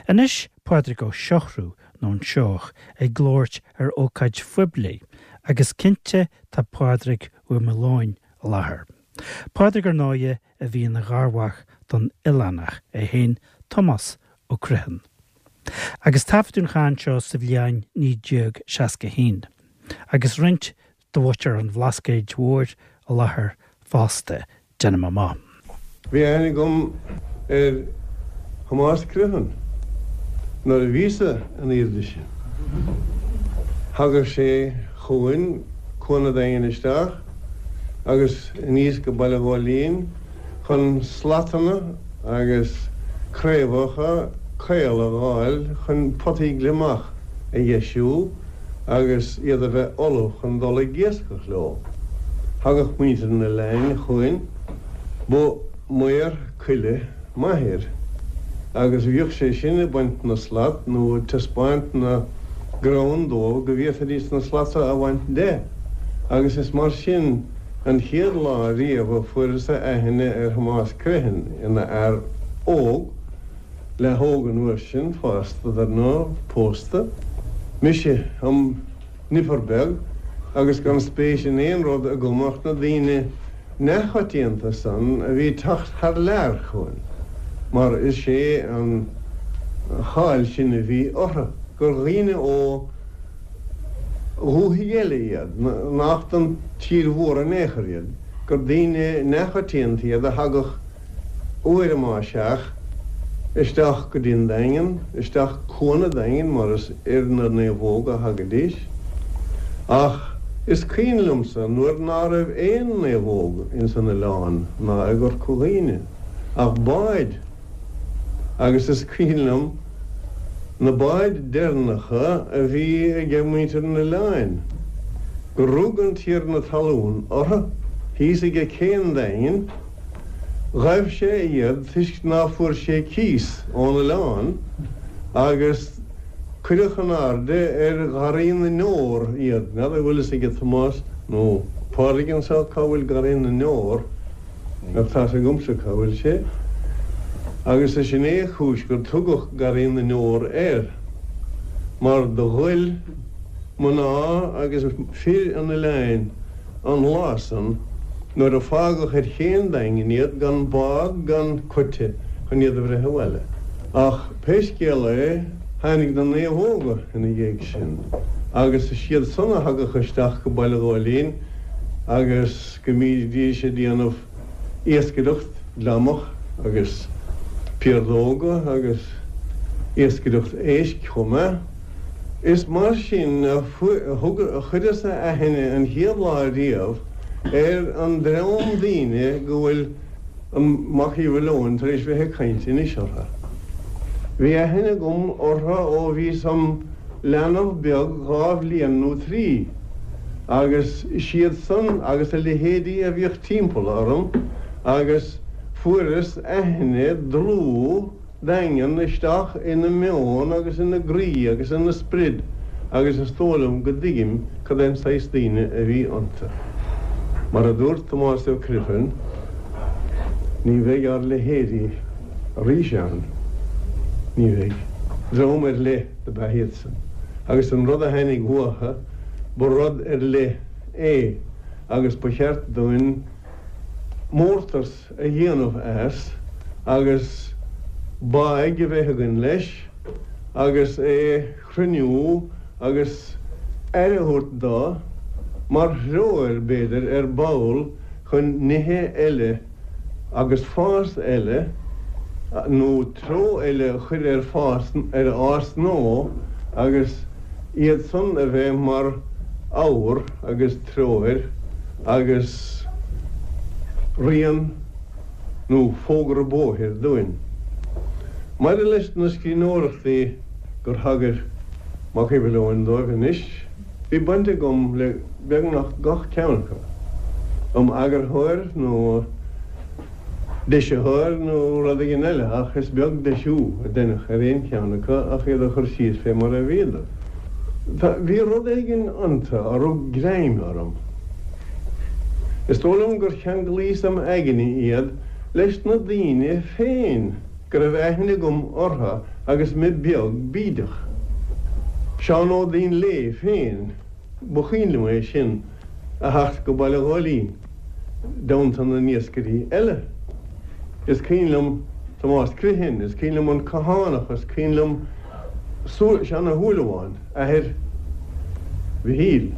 Anois Pádraig Ó Siochrú, nó an Seoigheach, ag labhairt ar ócáid phoiblí, agus cinnte tá Pádraig Ua Maoileoin i láthair. Pádraig, ar ndóighe, a bhí ina gharmhac don oileánach é féin, Tomás Ó Criomhthain. Agus taifeadadh an chaint seo sa bhliain 1961, agus roinnt de mhuintir an Bhlascaoid Mhóir i láthair fosta, déanaim amach. Bhí aithne agam ar Thomás Criomhthain nuair a bhíos-sa an aoirde sin. Thagadh sé chugainn Cuan a' Daingin isteach agus aníos go Baile Ghóilín chun slatanna agus craobhacha caola a dh'fháil chun potaí gliomach a dheisiú agus iad a bheith ullamh chun dul ag iascach leo. Thagadh muintir an oileáin chugainn. Ba maor coille m'athair agus bhíodh sé sin ag baint na slat nó ag taispeáint na gcrann dóibh go bhféadfaidís na slata a bhaint de agus is mar sin an chéad lá riamh a fuaireas-sa aithne ar Thomás Criomhthain ina fhear óg, leath-óg an uair sin, fásta dar ndóigh, pósta, mise im nipir beag agus gan spéis in aon rud agam ach na daoine neachoitianta san a bhí ag teacht thar lear chugainn, mar is é an cháil sin a bhí orthu, gur dhaoine ó dhúthaigh eile iad, nach den tír mhór in aon chor iad, gur daoine neachoitianta iad a thagadh uair má seadh, isteach go dtí an Daingean, isteach Cuan a' Daingin mar is ar na naomhóga a thagaidís. Ach is cuimhin liomsa nuair ná raibh aon naomhóg ins an oileán ná i gCorca Dhuibhne ach báid agus is cuimhin liom na báid deireanacha a bhí aige muintir an oileáin gur rug an tiarna talún orthu thíos aige cé an Daingin Ghaibh sé iad toisc ná fuair sé cíos ón oileán agus cuireadh in airde ar Gharraí na nDeor iad. N'fheadar an bhfuil fhios aige Tomás nó Pádraig anseo cá bhfuil Garraí na nDeor, ach tá's agamsa cá bhfuil sé. Agus is sin é a chúis gur tugadh Garraí na nDeor air, mar do ghoil mná agus fir an oileáin an lá san nuair a fágadh ar ché an Daingin iad gan bád gan coite chun iad a bhreith abhaile. Ach pé scéal é tháinig na naomhóga ina dhiaidh sin agus is iad san a thagadh isteach go Baile Ghóilín agus go mbídís ag déanamh iascaireacht gliomach agus piardóga agus iascaireacht éisc chomh maith. Is mar sin a chuireas-sa aithne an chéad lá riamh ar an dream daoine go bhfuil an Mac Uí Mhaoileoin tar éis bheith ag caint anois orthu. Bhí aithne agam orthu ó bhíos im leanbh beag dha bhliain nó trí, agus siad san agus a leithéidí a bhíodh timpeall orm agus fuaireas aithne dlúth daingean isteach ina meon agus ina gcroí agus ina sprid agus is dóigh liom go dtuigim cad é an saghas daoine a bhí iontu. Mar a dúirt Tomás Ó Criomhthain, ní bheidh ár leithéidí arís ann. Ní bheidh. Dream ar leith dob ea iadsan agus an rud a tháinig uathu, ba rud ar leith é agus ba cheart dúinn mórtas a dhéanamh as agus báidh a bheith againn leis agus é chruinniú agus aire a thabhairt dó mar threoir, b'fhéidir, ar ball chun nithe eile agus fás eile nó treo eile a chur ar fás, ar ár ngnó agus iad san a bheith mar fhabhar agus treoir agus rian nó fógra bóthair dúinn. Maidir leis na scríbhneoireachtaí gur thagair Mac Uí Mhaoileoin dóibh anois, bhí baint agam le beagnach gach ceann acu, im eagarthóir nó deisitheoir nó rud éigin eile, ach is beag deisiú a deineadh ar aon cheann acu ach iad a chur síos fé mar a bhíodar. Bhí rud éigin iontu a rug greim orm. Is dóigh liom gur cheanglaíos im aigne iad leis na daoine féin. go raibh aithne agam orthu agus mé beag bídeach. Seán Ó Duinnshléibhe féin, ba chuimhin liom é sin a theacht go Baile Ghóilín i dteannta na n-iascairí eile. Is cuimhin liom Tomás Criomhthain, is cuimhin liom an Cathánach, is cuimhin liom Seán Ó Shúilleabháin, athair Mhichíl,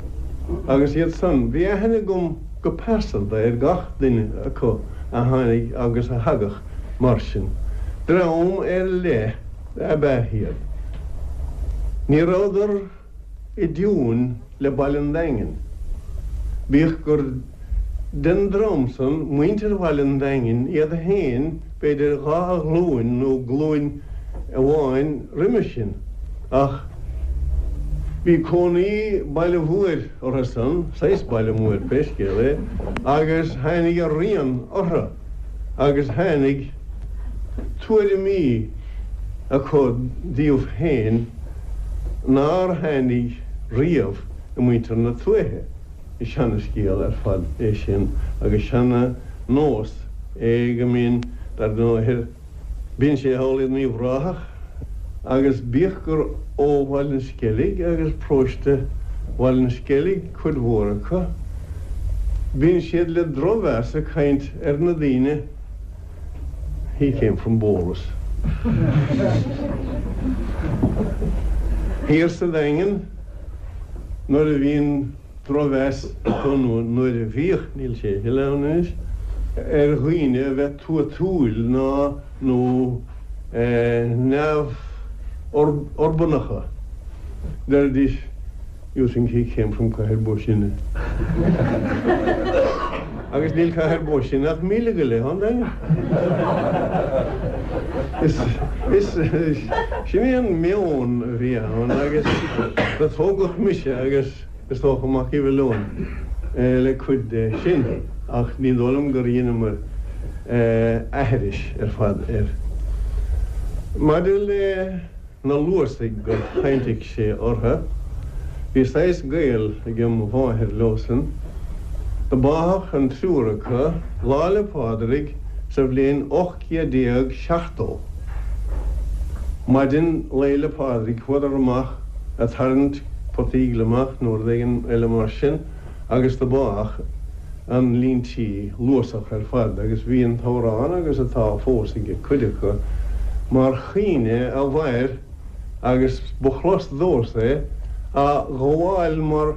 agus iad san. Bhí aithne agam go pearsanta ar gach duine acu a tháinig agus a thagadh mar sin. Dream ar leith ab ea iad. Ní rabhadar i dtiúin le Baile an Daingin, bíodh gur den dream san muintir Bhaile an Daingin iad féin b'fhéidir dha ghlúin nó glúin amháin roimhe sin, ach bhí cónaí baile mhóir orthu san, saghas baile mhóir pé scéal é, agus tháinig a rian orthu agus tháinig tuairimí acu díobh féin nár tháinig riamh i muintir na tuaithe. Is seana-scéal ar fad é sin agus seana-nós é go mbíonn, dar ndóighe, Bíonn sé thall in Uíbh Ráthach agus bíodh gur ó Bhaile an Sceilg agus paróiste Bhaile an Sceilg cuid mhór acu, bíonn siad le drochmheas ag caint ar na daoine He came from Bolas. Thiar sa Daingean nuair a bhíonn drochmheas acu, nó nuair a bhíodh, níl sé a thuilleadh ann anois, ar dhaoine a bheith tuatúil ná nó neamh-urbanacha. Deiridís, You think he came from Cathair Bó Sine. Agus níl Cathair Bó Sine ach míle go leith ón Daingean. Is, is, sin é an meon a bhí ann agus do tógadh mise agus is dócha Mac Uí Mhiolláin le cuid de sin ach ní dóigh liom gur dheineamar aithris ar fad air. Maidir le na Luasaigh gur chaintigh sé orthu, bhí saghas gaol ag mo mháthair leosan. Do báthadh an triúr acu Lá 'le Pádraig sa bhliain 1870. Maidin Lae 'le Pádraig chuadar amach a' tarraingt potaí gliomach nó rud éigin eile mar sin agus do báthadh an líon tí Luasach ar fad agus bhí an t-amhrán agus atá fós ag cuid acu mar chaoineadh a mhair agus ba chlos domhsa é á ghabháil mar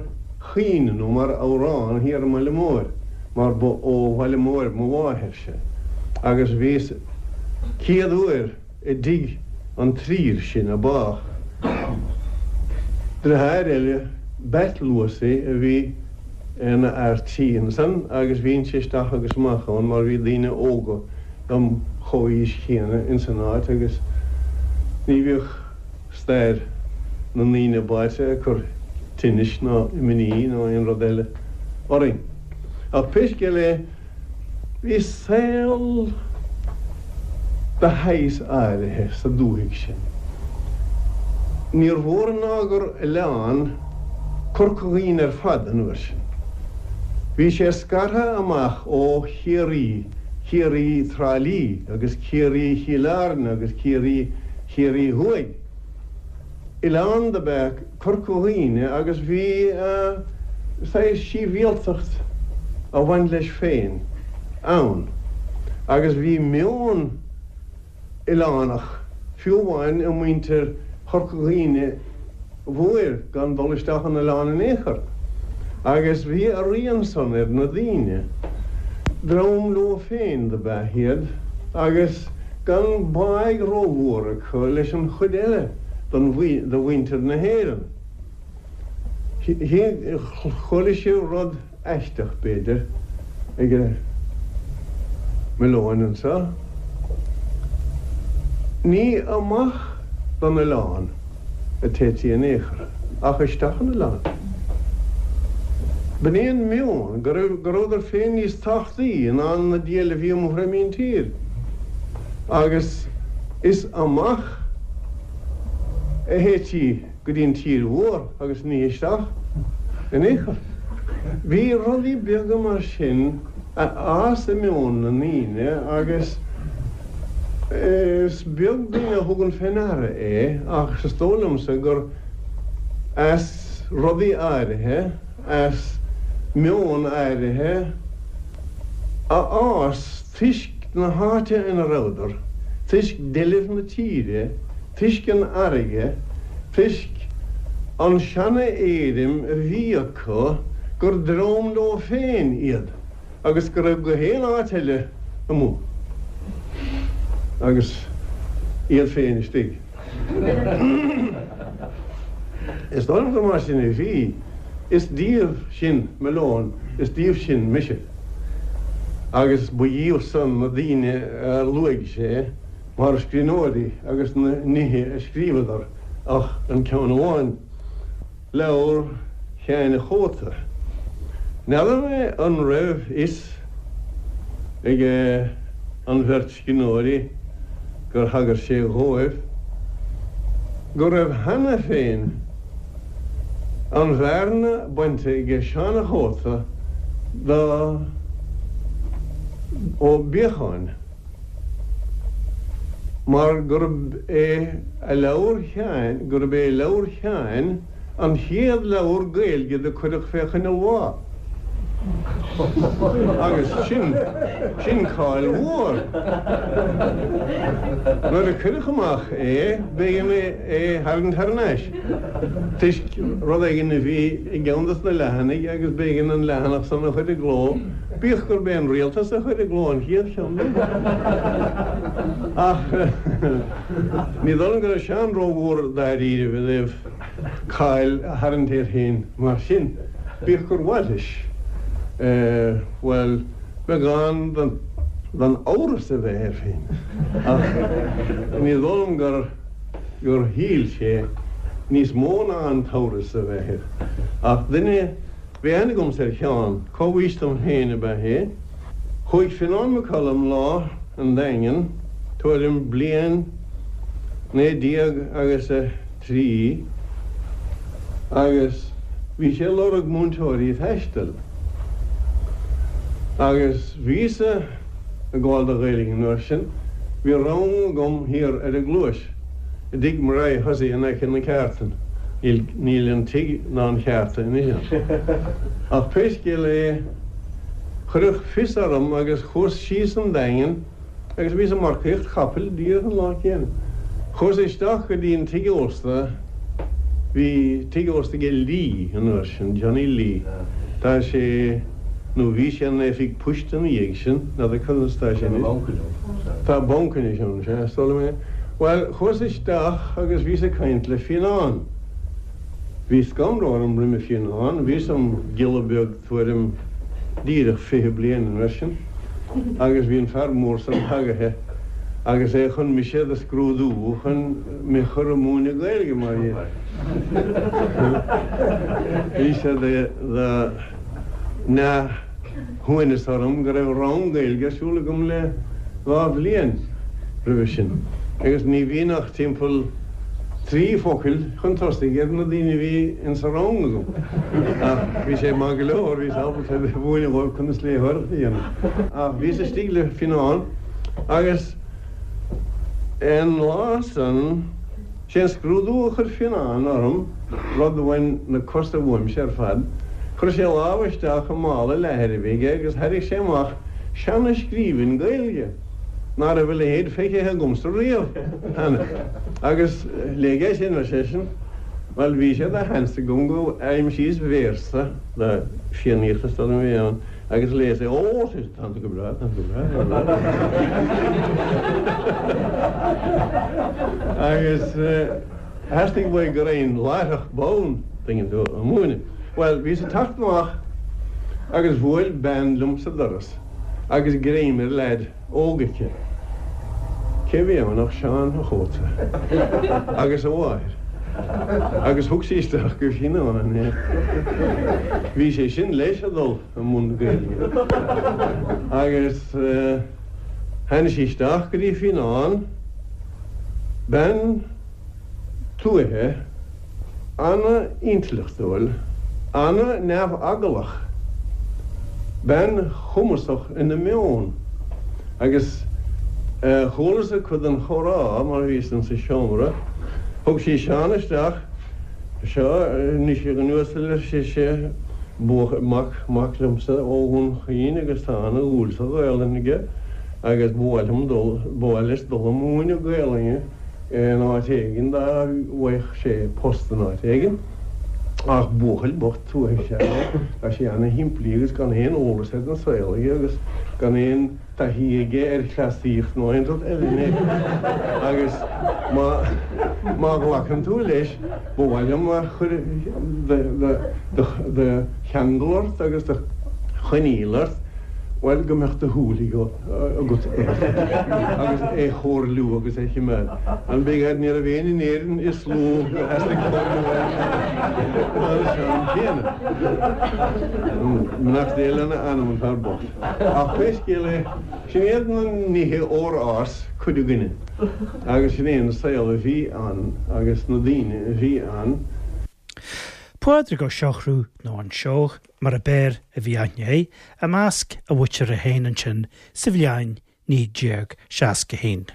chaoineadh nó mar amhrán thiar i mBaile Móir mar ba ó Bhaile Móir mo mháthairse agus bhíos céad uair i dtigh an trír sin a bádh. Deartháir eile, Batt Luasaí, a bhí ina fhear tí ansan agus bhínnse isteach agus amach ann mar bhí daoine óga dom chomhaois chéanna ins an áit agus ní bhíodh stair na ndaoine báite ag cur tinnis ná imní ná aon rud eile orainn. Ach pé scéal é, Bhí saol de shaghas áirithe sa dúthaigh sin. Níor mhór ná gur oileán Corca Dhuibhne ar fad an uair sin. Bhí sé scartha amach ó Chiarraí, Ciarraí Trá Lí agus Ciarraí Chill Airne agus Ciarraí Chiarraí Thuaidh. Oileán dob ea Corca Dhuibhne agus bhí saghas síbhialtacht a bhain leis féin ann agus bhí meon oileánach fiú amháin i muintir Chorca Dhuibhne Mhóir gan dul isteach an oileán in aon chor agus bhí a rian san ar na daoine. Dream leo féin dob ea iad agus gan báidh rómhór acu leis an chuid eile de mhuintir na hÉireann. Chuala sibh rud aisteach, b'fhéidir, ag Malone anseo. Ní amach don oileán a téití in aon chor, ach isteach an oileán. B'in é an meon, go rabhadar féin níos tábhachtaí ná na diabhail a bhí amuigh ar míntír. Agus is amach a théití go dtí an tír mhór agus ní isteach in aon chor. Bhí rudaí beaga mar sin a fhás i meon na ndaoine agus. Is beag duine a thugann fé ndeara é ach is dóigh liomsa gur as rudaí áirithe, as meon áirithe a fhás toisc na háite ina rabhadar, toisc deilbh na tíre, toisc an fharraige, toisc an seana-éirim a bhí acu gur dream leo féin iad agus go raibh gach aon áit eile amuigh agus iad féin istigh. Is dóigh liom gur mar sin a bhí. Is díobh sin Malone, is díobh sin mise. Agus ba dhíobh san na daoine a luaigh sé mar scríbhneoirí agus na nithe a scríobhadar ach an ceann amháin, leabhar Sheáin a' Chóta. N'fheadar mé an raibh fhios ag an bheirt scríbhneoirí gur thagair sé dhóibh go raibh cheana féin an bhearna bainte aige Seán a' Chóta do Ó Beacháin. Mar gurb é a leabhar Sheáin, gurb é leabhar Sheáin an chéad leabhar Gaeilge do cuireadh fé choinne lá. Agus sin, sin cáil mhór. Nuair a cuireadh amach é, b'éigean é tharraingt thar n-ais, toisc rud éigin a bhí i gceann dos na leathanaigh agus b'éigean an leathanach san a chur i gcló. Bíodh gurb é an rialtas a chuir i gcló an chéad cheann de. Ach ní dóigh liom go raibh Seán rómhór dáiríribh i dtaobh cáil a tharraingt air féin mar sin, bíodh gur mhaith leis, bhuel, beagán den amhras a bheith air féin. Ach ní dóigh liom gur gur shíl sé níos mó ná an t-amhras a bheith air. Ach duine. Bhí aithne agamsa ar Sheán, comhaois dom féin ab ea é. Chuaigh Fionán Mac Coluim lá 'on Daingean, tuairim bliain 19 agus a 3, agus bhí sé ag lorg múinteoirí taistil. Agus bhíos-sa ag gabháil do Ghaeilge an uair sin, bhí rang agam thiar ar an gCluais. I dtigh Murray Hussey in aice na ceártan. Níl an tigh ná an cheárta anois ann. Ach pé scéal é, cuireadh fios orm agus chuas síos an Daingean agus bhíos ag marcaíocht capaill díreach an lá céanna. Chuas isteach go dtí an tigh ósta, bhí tigh ósta aige Lee an uair sin, Johnny Lee. Tá sé. nó bhí sé ina oifig poist ina dhiaidh sin, n'fheadar conas atá sé anois. Tá banc anois ann, sea, is dóigh liom é. Bhuel, chuas isteach agus bhíos ag caint le Fionán. Bhí scanradh orm roimhe Fionán, bhíos im ghiolla beag tuairim díreach 20 bliain an uair sin agus bhí an fear mór san tagaithe agus é chun mise do scrúdú chun mé chur ag múineadh Gaeilge mar dhea. Bhí sé de. neamhshuaimhneas orm go raibh rang Gaeilge ar siúl agam le 2 bhliain roimhe sin agus ní bhíonn ach timpeall 3 focail chun tosaigh ar na daoine a bhí insa rang agam. Ach bhí sé maith go leor, bhíos ábalta a mhúineadh dhóibh conas léitheoireacht a dhéanamh. Ach bhíos istigh le Fionán agus an lá san, Sé an scrúdú a chuir Fionán orm, rud a bhain na cosa uaimse ar fad. Chuir sé a lámh isteach i mála leathair a bhí aige agus thairrig sé amach seana-scríbhinn Gaeilge ná raibh a leithéid feicthe agamsa riamh cheana. Agus léigh é sin, ar seisean. Bhuel, bhí sé de sheans agam go aimsíos véarsa de Fiannaíocht is dóigh liom a bhí ann. Agus léas é, Ó, sea, tánn tú go breá, tánn tú go breá. Agus theastaigh uaidh go raghainn láithreach bonn, tuigeann tú, a múineadh. Bhuel, bhíos ag teacht amach agus bhuail bean liom sa doras agus greim ar leaid. óg aici. Cé a bhí ann ach Seán a' Chóta agus a mháthair agus thug sí isteach go Fionán é. Bhí sé sin leis a dhul i mbun Gaeilge agus tháinig sí isteach go dtí Fionán, bean tuaithe, ana-intleachtúil, ana-neamheaglach, bean chumasach ina meon agus. Chualas-sa cuid den chomhrá mar bhíos insa seomra. Thug sí Seán isteach. Seo anois a dhuine uasail, ar sise, buachaill, mac, mac liomsa ó Dhún Chaoin agus tá ana-dhúil sa Ghaelainn aige agus ba mhaith liom dul, ba mhaith leis dul a múineadh Gaelainne in áit éigin dá bhfaigheadh sé post in áit éigin. Ach buachaill bocht tuaithe is ea é, tá sé ana-shimplí agus gan aon eolas ar an saol aige agus gan aon taithí aige ar chleasaíocht nó aon rud eile in aon chor. Agus má, má ghlacann tú leis, ba mhaith liom a chur de cheangal ort agus de choinníoll ort, bhuel, go mbeadh do shúil agat air agus é chomhairliú agus é choimeád. An b'fhéidir ní raibh éinne in Éirinn is lú gur theastaigh comhairliú uaidh ná an Seán céanna. Beannacht Dé lena anam, an fear bocht. Ach pé scéal é, sin iad na nithe ór fhás cuid againne agus sin é an saol a bhí ann agus na daoine a bhí ann. Pádraig Ó Siochrú, nó An Seoigheach mar ab fhearr a bhí aithne air, i measc a mhuintire féin ansin sa bhliain 1961.